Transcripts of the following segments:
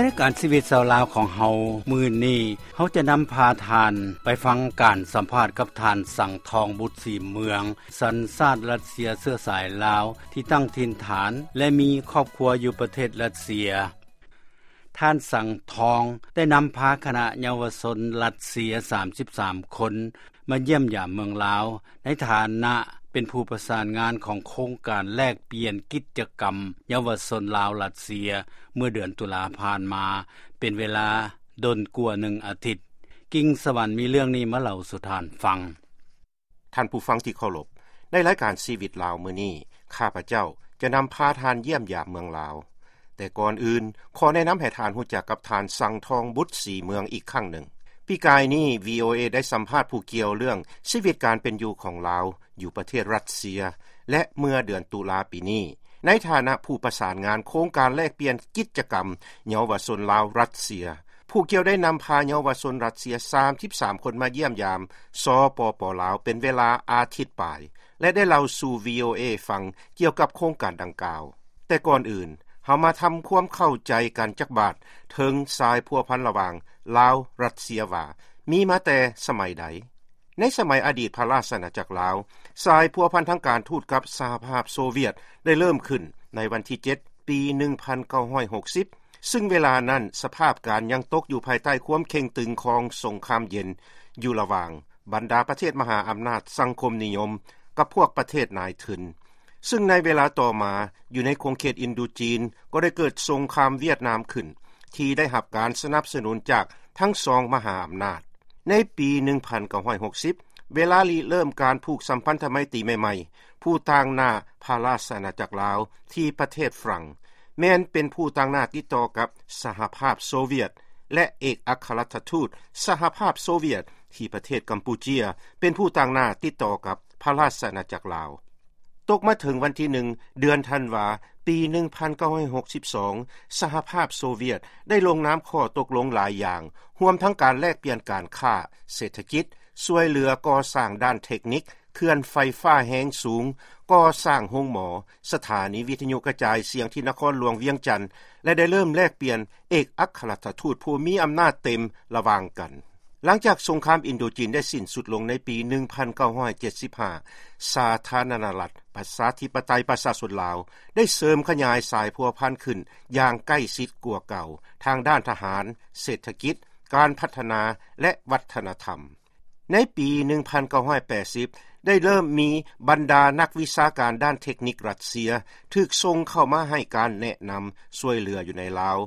ໃນລາຍການຊີວິດຊາວລາວຂອງເຮົາມື້ນີ້ ເຮົາຈະນຳພາທ່ານໄປຟັງການສຳພາດກັບທ່ານ ສັງທອງ ບຸດສີເມືອງ ສັນຊາດຣັດເຊຍເຊື້ອສາຍລາວ ທີ່ຕັ້ງຖິ່ນຖານ ແລະມີຄອບຄົວຢູ່ປະເທດຣັດເຊຍ. ທ່ານ ສັງທອງ ໄດ້ນຳພາຄະນະເຍົາວະຊົນຣັດເຊຍ ສາມສິບສາມຄົນ ມາຢ້ຽມຢາມເມືອງລາວ ໃນຖານະເປັນຜູ້ປະສານງານຂອງໂຄງການແລກປ່ຽນກິດຈະກຳເຍົາວະຊົນລາວ-ຣັດເຊຍ ເມື່ອເດືອນຕຸລາຜ່ານມາ ເປັນເວລາດົນກວ່າໜຶ່ງອາທິດ. ກິ່ງສະຫວັນມີເລື່ອງນີ້ມາເລົ່າສູ່ທ່ານຟັງ. ທ່ານຜູ້ຟັງທີ່ເຄົາລົບ, ໃນລາຍການຊີວິດລາວມື້ນີ້ ຂ້າພະເຈົ້າຈະນຳພາທ່ານຢ້ຽມຢາມເມືອງລາວ. ແຕ່ກ່ອນອື່ນ ຂໍແນະນຳໃຫ້ທ່ານຮູ້ຈັກກັບທ່ານ ສັງທອງ ບຸດສີເມືອງ ອີກຄັ້ງໜຶ່ງ. ປີກາຍນີ້ ວີໂອເອ ໄດ້ສຳພາດຜູ້ກ່ຽວເລື່ອງຊີວິດການເປັນຢູ່ຂອງລາວຢູ່ປະເທດຣັດເຊຍ ແລະ ເມື່ອເດືອນຕຸລາປີນີ້ ໃນຖານະຜູ້ປະສານງານໂຄງການແລກປ່ຽນກິດຈະກຳເຍົາວະຊົນລາວ-ຣັດເຊຍ. ຜູ້ກ່ຽວໄດ້ນຳພາເຍົາວະຊົນຣັດເຊຍ ສາມສິບສາມຄົນມາຢ້ຽມຢາມ ສປປ ລາວ ເປັນເວລາອາທິດປາຍ ແລະ ໄດ້ເລົ່າສູ່ ວີໂອເອ ຟັງກ່ຽວກັບໂຄງການດັ່ງກ່າວ. ແຕ່ກ່ອນອື່ນ ເຮົາມາທຳຄວາມເຂົ້າໃຈກັນຈັກບາດເຖິງສາຍພົວພັນລະຫວ່າງລາວ-ຣັດເຊຍວ່າ ມີມາແຕ່ສະໄໝໃດ? ໃນສະໄໝອະດີດພະລາຊະອານາຈັກລາວ, ສາຍພົວພັນທາງການທູດກັບສະຫະພາບໂຊວຽດໄດ້ເລີ່ມຂຶ້ນໃນວັນທີເຈັດ ປີໜຶ່ງພັນເກົ້າຮ້ອຍຫົກສິບ ຊຶ່ງເວລານັ້ນສະພາບການຍັງຕົກຢູ່ພາຍໃຕ້ຄວາມເຄັ່ງຕຶງຂອງສົງຄາມເຢັນ ຢູ່ລະຫວ່າງບັນດາປະເທດມະຫາອຳນາດສັງຄົມນິຍົມກັບພວກປະເທດນາຍທຶນ. ຊຶ່ງໃນເວລາຕໍ່ມາ ຢູ່ໃນຂົງເຂດອິນໂດຈີນ ກໍໄດ້ເກີດສົງຄາມຫວຽດນາມຂຶ້ນ ທີ່ໄດ້ຮັບການສະໜັບສະໜູນຈາກທັງສອງມະຫາອຳນາດ. ໃນປີໜຶ່ງພັນເກົ້າຮ້ອຍຫົກສິບ ເວລາລິເລີ່ມການຜູກສຳພັນທະໄມຕີໃໝ່ໆ, ຜູ້ຕາງໜ້າພະລາຊະອານາຈັກລາວທີ່ປະເທດຝຣັ່ງ ແມ່ນເປັນຜູ້ຕາງໜ້າຕິດຕໍ່ກັບສະຫະພາບໂຊວຽດ ແລະ ເອກອັກຄະລັດຖະທູດສະຫະພາບໂຊວຽດທີ່ປະເທດກຳປູເຈຍ ເປັນຜູ້ຕາງໜ້າຕິດຕໍ່ກັບພະລາຊະອານາຈັກລາວ. ຕົກມາເຖິງວັນທີໜຶ່ງ ເດືອນທັນວາ ປີໜຶ່ງພັນເກົ້າຮ້ອຍຫົກສິບສອງ ສະຫະພາບໂຊວຽດໄດ້ລົງນາມຂໍ້ຕົກລົງຫຼາຍຢ່າງ, ຮວມທັງການແລກປ່ຽນການຄ້າ, ເສດຖະກິດ, ຊ່ວຍເຫຼືອກໍ່ສ້າງດ້ານເທັກນິກ, ເຂື່ອນໄຟຟ້າແຮງສູງ, ກໍ່ສ້າງໂຮງໝໍ, ສະຖານີວິທະຍຸກະຈາຍສຽງທີ່ນະຄອນຫຼວງວຽງຈັນ ແລະ ໄດ້ເລີ່ມແລກປ່ຽນເອກອັກຄະລັດຖະທູດຜູ້ມີອຳນາດເຕັມລະຫວ່າງກັນ. ຫຼັງຈາກສົງຄາມອິນໂດຈີນໄດ້ສິ້ນສຸດລົງໃນປີໜຶ່ງພັນເກົ້າຮ້ອຍເຈັດສິບຫ້າ ສາທາລະນະລັດປະຊາທິປະໄຕປະຊາຊົນລາວ ໄດ້ເສີມຂະຫຍາຍສາຍພົວພັນຂຶ້ນຢ່າງໃກ້ຊິດກວ່າເກົ່າ ທາງດ້ານທະຫານ, ເສດຖະກິດ, ການພັດທະນາ ແລະ ວັດທະນະທຳ. ໃນປີໜຶ່ງພັນເກົ້າຮ້ອຍແປດສິບ ໄດ້ເລີ່ມມີບັນດານັກວິຊາການດ້ານເທັກນິກຣັດເຊຍ ຖືກສົ່ງເຂົ້າມາໃຫ້ການແນະນຳຊ່ວຍເຫຼືອຢູ່ໃນລາວ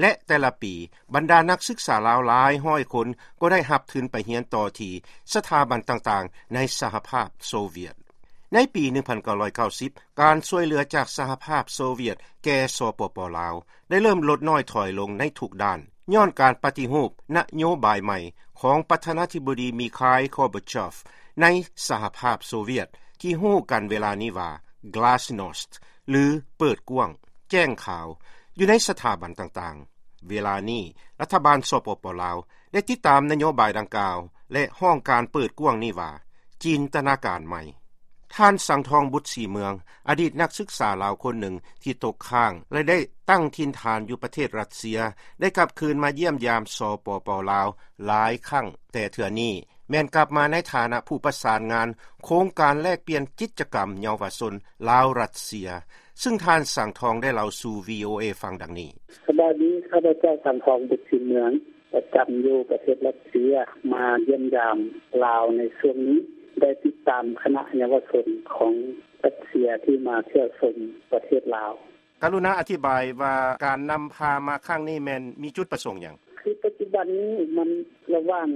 ແລະ ແຕ່ລະປີ ບັນດານັກສຶກສາລາວຫຼາຍຮ້ອຍຄົນກໍໄດ້ຮັບທຶນໄປຮຽນຕໍ່ທີ່ສະຖາບັນຕ່າງໆໃນສະຫະພາບໂຊວຽດ. ໃນປີໜຶ່ງພັນເກົ້າຮ້ອຍເກົ້າສິບ ການຊ່ວຍເຫຼືອຈາກສະຫະພາບໂຊວຽດແກ່ ສປປ ລາວ ໄດ້ເລີ່ມລົດນ້ອຍຖອຍລົງໃນທຸກດ້ານ ຍ້ອນການປະຕິຮູບນະໂຍບາຍໃໝ່ຂອງປະທານາທິບໍດີ ມີຄາຍ ຄອບາເຊບ ໃນສະຫະພາບໂຊວຽດ ທີ່ຮູ້ກັນເວລານີ້ວ່າ Glasnost ຫຼື ເປີດກວ້າງ, ແຈ້ງຂາວ ຢູ່ໃນສະຖາບັນຕ່າງໆ. ເວລານີ້ ລັດຖະບານ ສປປ ລາວ ໄດ້ຕິດຕາມນະໂຍບາຍດັ່ງກ່າວ ແລະ ຮ້ອງການເປີດກວ້າງນີ້ວ່າ ຈິນຕະນາການໃໝ່. ທ່ານ ສັງທອງ ບຸດສີເມືອງ ອະດີດນັກສຶກສາລາວຄົນໜຶ່ງທີ່ຕົກຄ້າງ ແລະ ໄດ້ຕັ້ງຖິ່ນຖານຢູ່ປະເທດຣັດເຊຍ ໄດ້ກັບຄືນມາຢ້ຽມຢາມ ສປປ ລາວ ຫຼາຍຄັ້ງ, ແຕ່ເທື່ອນີ້ແມ່ນກັບມາໃນຖານະຜູ້ປະສານງານໂຄງການແລກປ່ຽນກິດຈະກຳເຍົາວະຊົນລາວ-ຣັດເຊຍ, ຊຶ່ງທ່ານ ສັງທອງ ໄດ້ເລົ່າສູ່ ວີໂອເອ ຟັງດັ່ງນີ້. ສະບາຍດີ, ຂ້າພະເຈົ້າ ສັງທອງ ບຸດສີເມືອງ ປະຈຳຢູ່ປະເທດຣັດເຊຍ ມາຢ້ຽມຢາມລາວໃນຊ່ວງນີ້ ໄດ້ຕິດຕາມຄະນະເຍົາວະຊົນຂອງຣັດເຊຍທີ່ມາທ່ຽວຊົມປະເທດລາວ. ກະລຸນາອະທິບາຍວ່າການນຳພາມາຄັ້ງນີ້ແມ່ນມີຈຸດປະສົງຫຍັງ? ຄືປັດຈຸບັນນີ້ມັນລະຫວ່າງ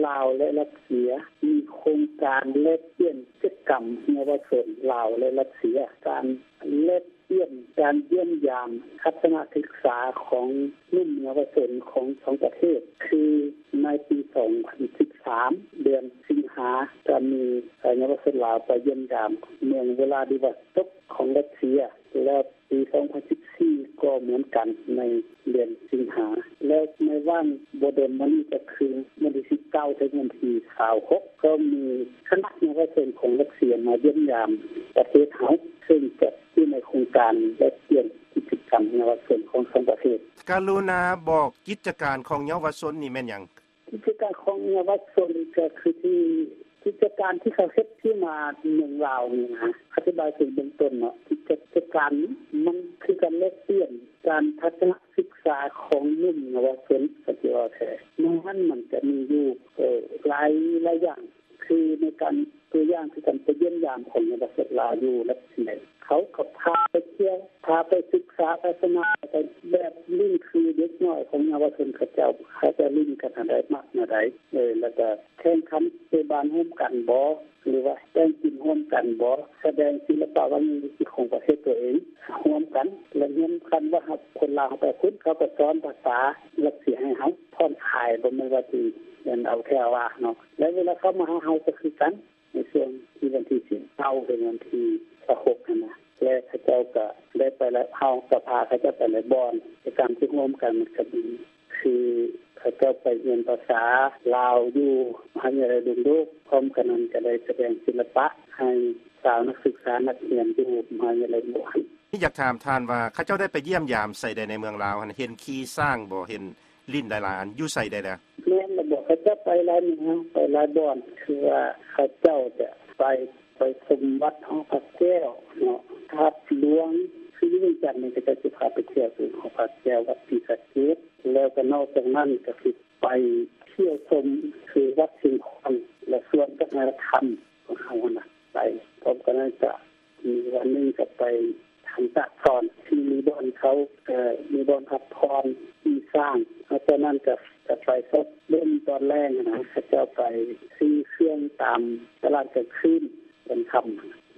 ລາວ ແລະ ຣັດເຊຍ ມີໂຄງການແລກປ່ຽນກິດຈະກຳເຍົາວະຊົນລາວ ແລະ ຣັດເຊຍ. ການແລກປ່ຽນ ການຢ້ຽມຢາມທັດສະນະສຶກສາຂອງໜຸ່ມເຍົາວະຊົນຂອງສອງປະເທດ ຄືໃນປີສອງພັນສິບສາມ ເດືອນສິງຫາ ກະມີເຍົາວະຊົນລາວໄປຢ້ຽມຢາມເມືອງວະລາດິວອສໂຕກຂອງຣັດເຊຍ ແລະ ປີສອງພັນສິບສີ່ ກໍເໝືອນກັນໃນເດືອນສິງຫາ ແລະ ໃນຫວ່າງບໍ່ດົນມານີ້ ກະຄືວັນທີສິບເກົ້າ ເຖິງວັນທີຊາວຫົກ ກໍມີຄະນະເຍົາວະຊົນຂອງຣັດເຊຍມາຢ້ຽມຢາມປະເທດເຮົາ ເຊິ່ງຈະ ຢູ່ໃນໂຄງການແລກປ່ຽນກິດຈະກ ນເຍົາວະຊົນຂອງສອງປະເທດ. ກະລຸນາບອກກິດຈະການຂອງເຍົາວະຊົນນີ້ແມ່ນຫຍັງ? ກິດຈະການຂອງເຍົາວະຊົນກໍຄືທີ່ ກິດຈະການທີ່ເຂົາເຮັດທີ່ມາເມືອງລາວນີ້ນະ ອະທິບາຍເຖິງເບື້ອງຕົ້ນເນາະ ກິດຈະການນີ້ມັນຄືການແລກປ່ຽນການທັດສະນະສຶກສາຂອງໜຸ່ມເຍົາວະຊົນ ກໍຊິເວົ້າແທ້ ໃນນັ້ນມັນຈະມີຢູ່ ເອີ ຫຼາຍ ຫຼາຍຢ່າງ ຄືໃນການ ຕົວຢ່າງຄືການໄປຢ້ຽມຢາມຂອງເຍົາວະຊົນລາວຢູ່ລັດເຊຍ ເຂົາກໍພາໄປທ່ຽວ ພາໄປສຶກສາທັດສະນະ ແບບຫຼິ້ນຄືເດັກນ້ອຍຂອງເຍົາວະຊົນເຂົາເຈົ້າ ເຂົາເຈົ້າຫຼິ້ນກັນແນວໃດ ມັກແນວໃດ ເອີ ແລ້ວກໍແຂ່ງຂັນເຕະບານຮ່ວມກັນບໍ ຫຼືວ່າແຕ່ງກິມຮ່ວມກັນບໍ ສະແດງສິລະປະວັດທະນະທຳຂອງປະເທດຕົວເອງຮ່ວມກັນ ແລະ ຮຽນກັນວ່າຄົນລາວເຮົາໄປພຸ້ນ ເຂົາກໍສອນພາສາຣັດເຊຍໃຫ້ເຮົາຜ່ອນຄາຍ ບໍ່ແມ່ນວ່າຊິເອົາແທ້ເອົາວ່າເນາະ ແລະ ເວລາເຂົາມາຫາເຮົາກໍຄືກັນ ໃນຊ່ວງທີ່ວັນທີສິບເກົ້າເຖິງວັນທີຊາວຫົກຫັ້ນນະ ແລະ ເຂົາເຈົ້າກໍໄດ້ໄປ ແລະ ເຮົາກໍພາເຂົາເຈົ້າໄປຫຼາຍບ່ອນ ກິດຈະກຳທີ່ຮ່ວມກັນມັນກໍມີ ຄືເຂົາເຈົ້າໄປຮຽນພາສາລາວຢູ່ມະຫາວິທະຍາໄລດົງໂດກ ພ້ອມກັນນັ້ນກໍໄດ້ສະແດງສິລະປະໃຫ້ຊາວນັກສຶກສານັກຮຽນຢູ່ມະຫາວິທະຍາໄລໂດງໂດກ. ຢາກຖາມທ່ານວ່າ ເຂົາເຈົ້າໄດ້ໄປຢ້ຽມຢາມໃສແດ່ໃນເມືອງລາວຫັ້ນ ເຫັນຂີ່ຊ້າງບໍ່ ເຫັນຫຼິ້ນຫຼາຍໆອັນ ຢູ່ໃສແດ່ລະ? ແມ່ນລະບໍ ເຂົາເຈົ້າໄປຫຼາຍເມືອງ ໄປຫຼາຍບ່ອນ ຄືວ່າເຂົາເຈົ້າຈະໄປ ໄປຊົມວັດຫໍພະແກ້ວເນາະ ທາດຫຼວງ ຄືຢູ່ວຽງຈັນນີ້ ເຂົາເຈົ້າຊິພາໄປທ່ຽວທີ່ຫໍພະແກ້ວ ວັດສີສະເກດ ແລ້ວກໍນອກຈາກນັ້ນກໍຊິໄປທ່ຽວຊົມຄືວັດຊຽງຂວາງ ແລະ ສວນວັດທະນະທຳຂອງເຮົາຫັ້ນນະ ໄປ ພ້ອມກັນນັ້ນກໍ ມີວັນໜຶ່ງກໍໄປທາງຕາກສອນ ທີ່ມີບ່ອນເຂົາ ເອີ ມີບ່ອນພັກຜ່ອນຂີ່ຊ້າງ ແລ້ວຈາກນັ້ນກໍ ກໍໄປຊອກເບິ່ງຕອນແລງນະ ເຂົາເຈົ້າໄປຊື້ເຄື່ອງຕາມຕະຫຼາດກາງຄືນຕອນຄ່ຳ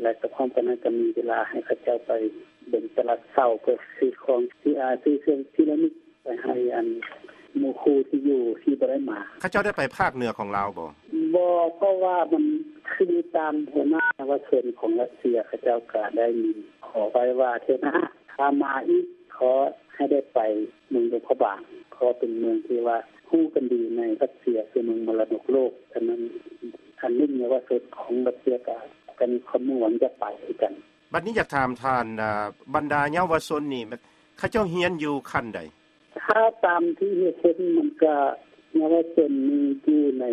ແລະ ກໍພ້ອມກັນນັ້ນກໍມີເວລາໃຫ້ເຂົາເຈົ້າໄປເບິ່ງຕະຫຼາດເຊົ້າ ເພື່ອຊື້ຂອງທີ່ ອາ ຊື້ເຄື່ອງທີ່ລະນຶກ ໄປໃຫ້ອັນໝູ່ຄູ່ທີ່ຢູ່ທີ່ບໍ່ໄດ້ມາ. ເຂົາເຈົ້າໄດ້ໄປພາກເໜືອຂອງລາວບໍ່? ບໍ່ ເພາະວ່າມັນຄືຕາມຫົວໜ້າເຍົາວະຊົນຂອງຣັດເຊຍ ເຂົາເຈົ້າກໍໄດ້ມີຂໍໄວ້ວ່າ ເທື່ອໜ້າຖ້າມາອີກ ຂໍໃຫ້ໄດ້ໄປເມືອງຫຼວງພະບາງ ເພາະເປັນເມືອງທີ່ວ່າຮູ້ກັນດີໃນຣັດເຊຍ ຄືເມືອງມໍລະດົກໂລກ. ສະນັ້ນ ອັນໜຸ່ມເຍົາວະຊົນຂອງຣັດເຊຍກໍ ກໍມີຄວາມມຸ່ງຫວັງຈະໄປຄືກັນ. ບັດນີ້ຢາກຖາມທ່ານ ອາ ບັນດາເຍົາວະຊົນນີ້ ເຂົາເຈົ້າຮຽນຢູ່ຂັ້ນໃດ? ຖ້າຕາມທີ່ເຫັນ ມັນກະເຍົາວະຊົນນີ້ຢູ່ໃນ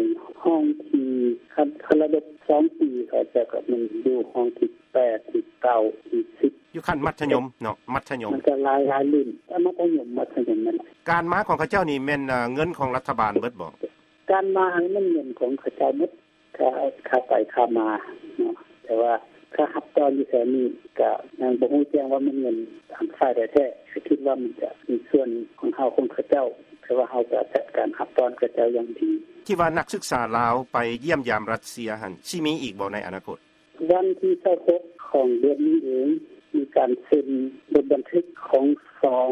ຫ້ອງທີ່ ຄັນ ຄັນລະດັບສອງປີ ເຂົາເຈົ້າກະແມ່ນຢູ່ຫ້ອງທີແປດ ທີເກົ້າ ທີສິບ ຢູ່ຂັ້ນມັດທະຍົມເນາະ ມັດທະຍົມ ມັນກະຫຼາຍ ຫຼາຍລຸ້ນ ແຕ່ມັດທະຍົມ ມັດທະຍົມນັ້ນ. ການມາຂອງເຂົາເຈົ້ານີ້ແມ່ນ ເງິນຂອງລັດຖະບານເບິດບໍ່? ການມານີ້ແມ່ນເງິນຂອງເຂົາເຈົ້າໝົດ ຄ່າ ຄ່າໄປຄ່າມາເນາະ ແຕ່ວ່າຄ່າຮັບຕ້ອນຢູ່ແຖວນີ້ກະຍັງບໍ່ຮູ້ແຈ້ງວ່າແມ່ນເງິນທາງຝ່າຍໃດແທ້ ກະຄິດວ່າມັນຈະມີສ່ວນຂອງເຮົາຂອງເຂົາເຈົ້າ ແຕ່ວ່າເຮົາກະຈັດການຮັບຕ້ອນເຂົາເຈົ້າຢ່າງດີ. ທີ່ວ່ານັກສຶກສາລາວໄປຢ້ຽມຢາມຣັດເຊຍຫັ້ນ ຊິມີອີກບໍ່ໃນອະນາຄົດ? ວັນທີຊາວຫົກຂອງເດືອນນີ້ເອງ ມີການເຊັນບົດບັນທຶກຂອງສອງ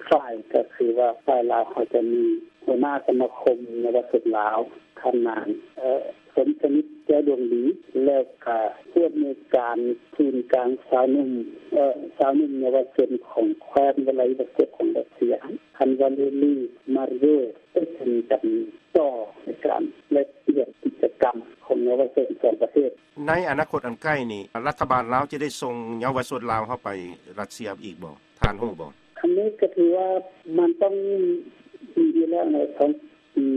ຝ່າຍ ກະຄືວ່າຝ່າຍລາວເຮົາຈະມີຫົວໜ້າສະມາຄົມເຍົາວະຊົນລາວ ທ່ານນາງ ເອີ ສົມສະໜິດ ແກ້ວດວງດີ ແລ້ວກະຜູ້ອຳນວຍການສູນກາງຊາວໜຸ່ມ ເອີ ຊາວໜຸ່ມເຍົາວະຊົນຂອງແຄວ້ນວລາດິວອສໂຕກຂອງຣັດເຊຍ ທ່ານ ວາເລລີ ມາເຣຍ ໄດ້ເຊັນກັນຕໍ່ໃນການແລກປ່ຽນກິດຈະກຳຂອງເຍົາວະຊົນສອງປະເທດ. ໃນອະນາຄົດອັນໃກ້ນີ້ ລັດຖະບານລາວຈະໄດ້ສົ່ງເຍົາວະຊົນລາວເຮົາໄປຣັດເຊຍອີກບໍ່? ທ່ານຮູ້ບໍ່? ອັນນີ້ກໍຖືວ່າມັນຕ້ອງມີຢູ່ແລ້ວໃນ ສອງປີ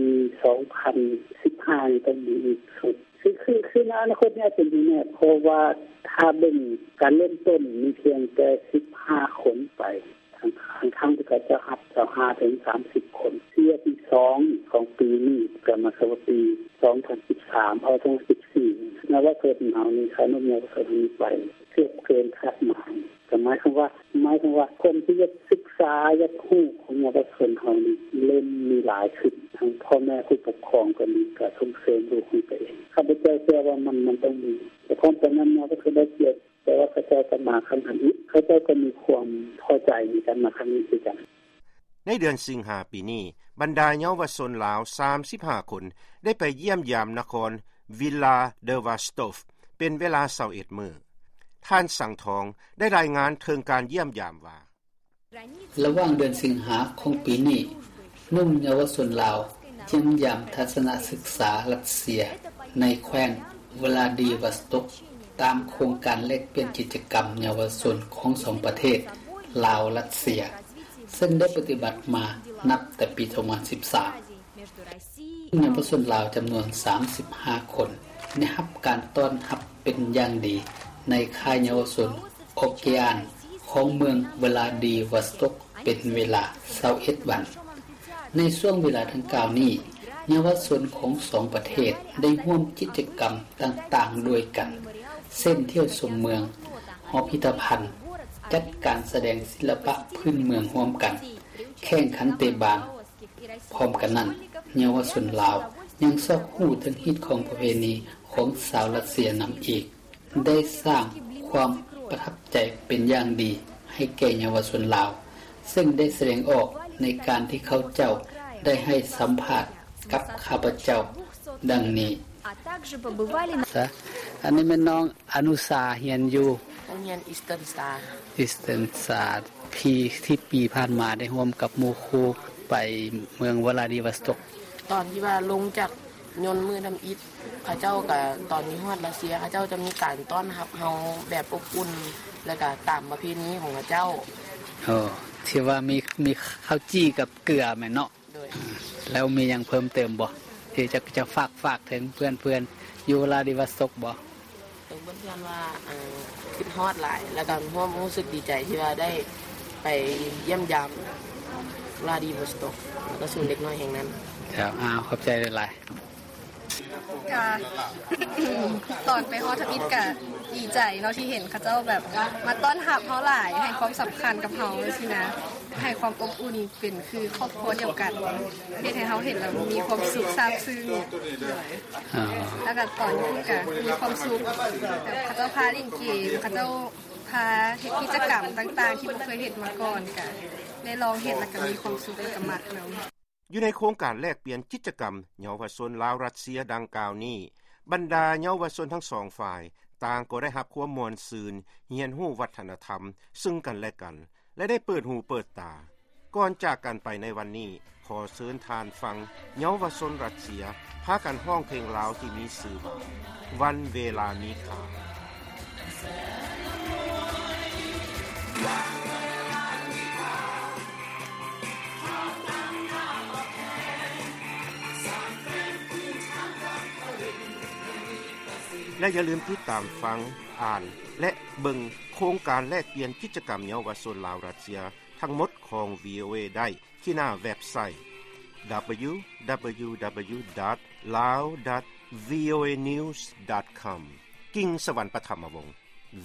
ສອງພັນສິບຫ້ານີ້ຕ້ອງມີອີກຊຸດ ຄື ຄື ຄືໃນອະນາຄົດນີ້ອາດຈະມີແນ່ ເພາະວ່າຖ້າເບິ່ງການເລີ່ມຕົ້ນມີພຽງແຕ່ສິບຫ້າຄົນໄປ ທັງ ທັງທີ່ເຂົາເຈົ້າຮັບຊາວຫ້າເຖິງສາມສິບຄົນ. ເທື່ອທີສອງຂອງປີນີ້ກໍໝາຍຄວາມວ່າປີສອງພັນສິບສາມ ເອົາ ສອງພັນສິບສີ່ ເຍົາວະຊົນເຮົານີ້ ຄ່າໜຸ່ມເຍົາວະຊົນເຮົານີ້ໄປເກືອບເກີນຄາດໝາຍ ກໍໝາຍຄວາມວ່າ ໝາຍຄວາມວ່າຄົນທີ່ຢາກສຶກສາ ຢາກຮູ້ຂອງເຍົາວະຊົນເຮົານີ້ເລີ່ມມີຫຼາຍຂຶ້ນ ທັງພໍ່ແມ່ຜູ້ປົກຄອງກໍດີ ກໍສົ່ງເສີມລູກຂອງຕົວເອງ. ຂ້າພະເຈົ້າເຊື່ອວ່າມັນ ມັນຕ້ອງມີ ແຕ່ຄວາມປະມານເຮົາກໍຄືໄດ້ກຽດ ແຕ່ວ່າເຂົາເຈົ້າກໍມາຄັ້ງທຳອິດ ເຂົາເຈົ້າກໍມີຄວາມພໍໃຈໃນການມາຄັ້ງນີ້ຄືກັນ. ໃນເດືອນສິງຫາປີນີ້ ບັນດາເຍົາວະຊົນລາວສາມສິບຫ້າຄົນ ໄດ້ໄປຢ້ຽມຢາມນະຄອນ Vila Devastov ເປັນເວລາຊາວເອັດມື້. ທ່ານ ສັງທອງ ໄດ້ລາຍງານເຖິງການຢ້ຽມຢາມວ່າ ລະຫວ່າງເດືອນສິງຫາຂອງປີນີ້ ໜຸ່ມເຍົາວະຊົນລາວຢ້ຽມຢາມທັດສະນະສຶກສາຣັດເຊຍ ໃນແຄວ້ນ ວລາດີວອສໂຕກ ຕາມໂຄງການແລກປ່ຽນກິດຈະກຳເຍົາວະຊົນຂອງສອງປະເທດ ລາວ-ຣັດເຊຍ ເຊິ່ງໄດ້ປະຕິບັດມານັບແຕ່ປີສອງພັນສິບສາມ. ເຍົາວະຊົນລາວຈຳນວນສາມສິບຫ້າຄົນ ໄດ້ຮັບການຕ້ອນຮັບເປັນຢ່າງດີໃນຄ້າຍເຍົາວະຊົນໂອເກອານຂອງເມືອງວລາດີວອສໂຕກ ເປັນເວລາຊາວເອັດວັນ. ໃນຊ່ວງເວລາດັ່ງກ່າວນີ້, ເຍົາວະຊົນຂອງສອງປະເທດໄດ້ຮ່ວມກິດຈະກຳຕ່າງໆດ້ວຍກັນ ເຊັ່ນ ທ່ຽວຊົມເມືອງ, ຫໍພິພິທະພັນ, ຈັດການສະແດງສິລະປະພື້ນເມືອງຮ່ວມກັນ, ແຂ່ງຂັນເຕະບານ. ພ້ອມກັນນັ້ນ, ເຍົາວະຊົນລາວຍັງຊອກຮູ້ເຖິງຮີດຄອງປະເພນີຂອງຊາວຣັດເຊຍນຳອີກ. ໄດ້ສ້າງຄວາມປະທັບໃຈເປັນຢ່າງດີໃຫ້ແກ່ເຍົາວະຊົນລາວ, ເຊິ່ງໄດ້ສະແດງອອກໃນການທີ່ເຂົາເຈົ້າໄດ້ໃຫ້ສຳພາດກັບຂ້າພະເຈົ້າດັ່ງນີ້. ອັນນີ້ແມ່ນນ້ອງອະນຸຊາ ຮຽນຢູ່ ໂຮງຮຽນ Eastern Star. Eastern Star. ທີ່ ທີ່ປີຜ່ານມາໄດ້ຮ່ວມກັບໝູ່ຄູ່ໄປເມືອງວລາດີວອສໂຕກ. ຕອນທີ່ວ່າລົງຈາກຍົນມື້ທຳອິດ ເຂົາເຈົ້າກະ ຕອນທີ່ຮອດຣັດເຊຍ ເຂົາເຈົ້າຈະມີການຕ້ອນຮັບເຮົາແບບອົບອຸ່ນ ແລ້ວກະຕາມປະເພນີຂອງເຂົາເຈົ້າ. ໂອ້ ທີ່ວ່າມີ ມີເຂົ້າຈີ່ກັບເກືອແມ່ນເນາະ? ໂດຍ. ແລ້ວມີຫຍັງເພີ່ມເຕີມບໍ່ ທີ່ຈະ ຈະຝາກ ຝາກເຖິງເພື່ອນໆຢູ່ວລາດີວອສໂຕກບໍ່? ເອີ ເພື່ອນໆວ່າ ເອີ ຄິດຮອດຫຼາຍ ແລ້ວກໍຮ່ວມຮູ້ສຶກດີໃຈທີ່ວ່າໄດ້ໄປຢ້ຽມຢາມວລາດີວອສໂຕກ ແລ້ວກໍສູນເດັກນ້ອຍແຫ່ງນັ້ນ. ເຈົ້າ ອ້າວ ຂອບໃຈຫຼາຍໆ. ກະ ຕອນໄປຮອດທຳອິດກະດີໃຈເນາະ ທີ່ເຫັນເຂົາເຈົ້າແບບມາຕ້ອນຮັບເຮົາຫຼາຍ ໃຫ້ຄວາມສຳຄັນກັບເຮົາຊີ້ນະ ໃຫ້ຄວາມອົບອຸ່ນ ເປັນຄືຄອບຄົວດຽວກັນ ເຮັດໃຫ້ເຮົາເຫັນແລ້ວມີຄວາມສຸກຊາບຊຶ້ງ. ອໍ ແລ້ວກໍຕອນຢູ່ພຸ້ນກໍມີຄວາມສຸກ ແບບເຂົາເຈົ້າພາຫຼິ້ນເກມ ເຂົາເຈົ້າພາເຮັດກິດຈະກຳຕ່າງໆ ທີ່ບໍ່ເຄີຍເຮັດມາກ່ອນ ກໍໄດ້ລອງເຮັດ ແລ້ວກໍມີຄວາມສຸກ ແລ້ວກໍມັກນຳ. ຢູ່ໃນໂຄງການແລກປ່ຽນກິດຈະກຳເຍົາວະຊົນລາວ-ຣັດເຊຍດັ່ງກ່າວນີ້, ບັນດາເຍົາວະຊົນທັງສອງຝ່າຍ ຕ່າງກໍໄດ້ຮັບຄວາມມ່ວນຊື່ນ, ຮຽນຮູ້ວັດທະນະທຳເຊິ່ງກັນແລະກັນ ແລະ ໄດ້ເປີດຫູເປີດຕາ. ກ່ອນຈາກກັນໄປໃນວັນນີ້, ຂໍເຊີນທ່ານຟັງເຍົາວະຊົນຣັດເຊຍພາກັນຮ້ອງເພງລາວທີ່ມີຊື່ວ່າ ວັນເວລາມີຄ່າ. ແລະຢ່າລືມຕິດຕາມຟັງ, ອ່ານ ແລະ ເບິ່ງໂຄງການແລກປ່ຽນກິດຈະກຳເຍົາວະຊົນລາວ-ຣັດເຊຍທັງໝົດຂອງ ວີໂອເອ ໄດ້ທີ່ໜ້າເວັບໄຊ www.lao.voanews.com. ກິ່ງສະຫວັນ ປະຖຳມະວົງ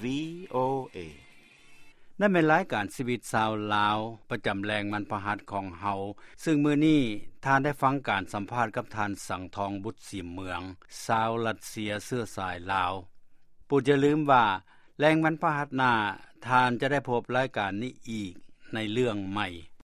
ວີໂອເອ. ນັ້ນແມ່ນລາຍການຊີວິດຊາວລາວ ປະຈຳແລງວັນພະຫັດຂອງເຮົາ, ເຊິ່ງມື້ນີ້ທ່ານໄດ້ຟັງການສຳພາດກັບທ່ານ ສັງທອງ ບຸດສີເມືອງ, ຊາວຣັດເຊຍເຊື້ອສາຍລາວ. ໂປດຢ່າລືມວ່າ ແລງວັນພະຫັດໜ້າ, ທ່ານຈະໄດ້ພົບລາຍການນີ້ອີກໃນເລື່ອງໃໝ່.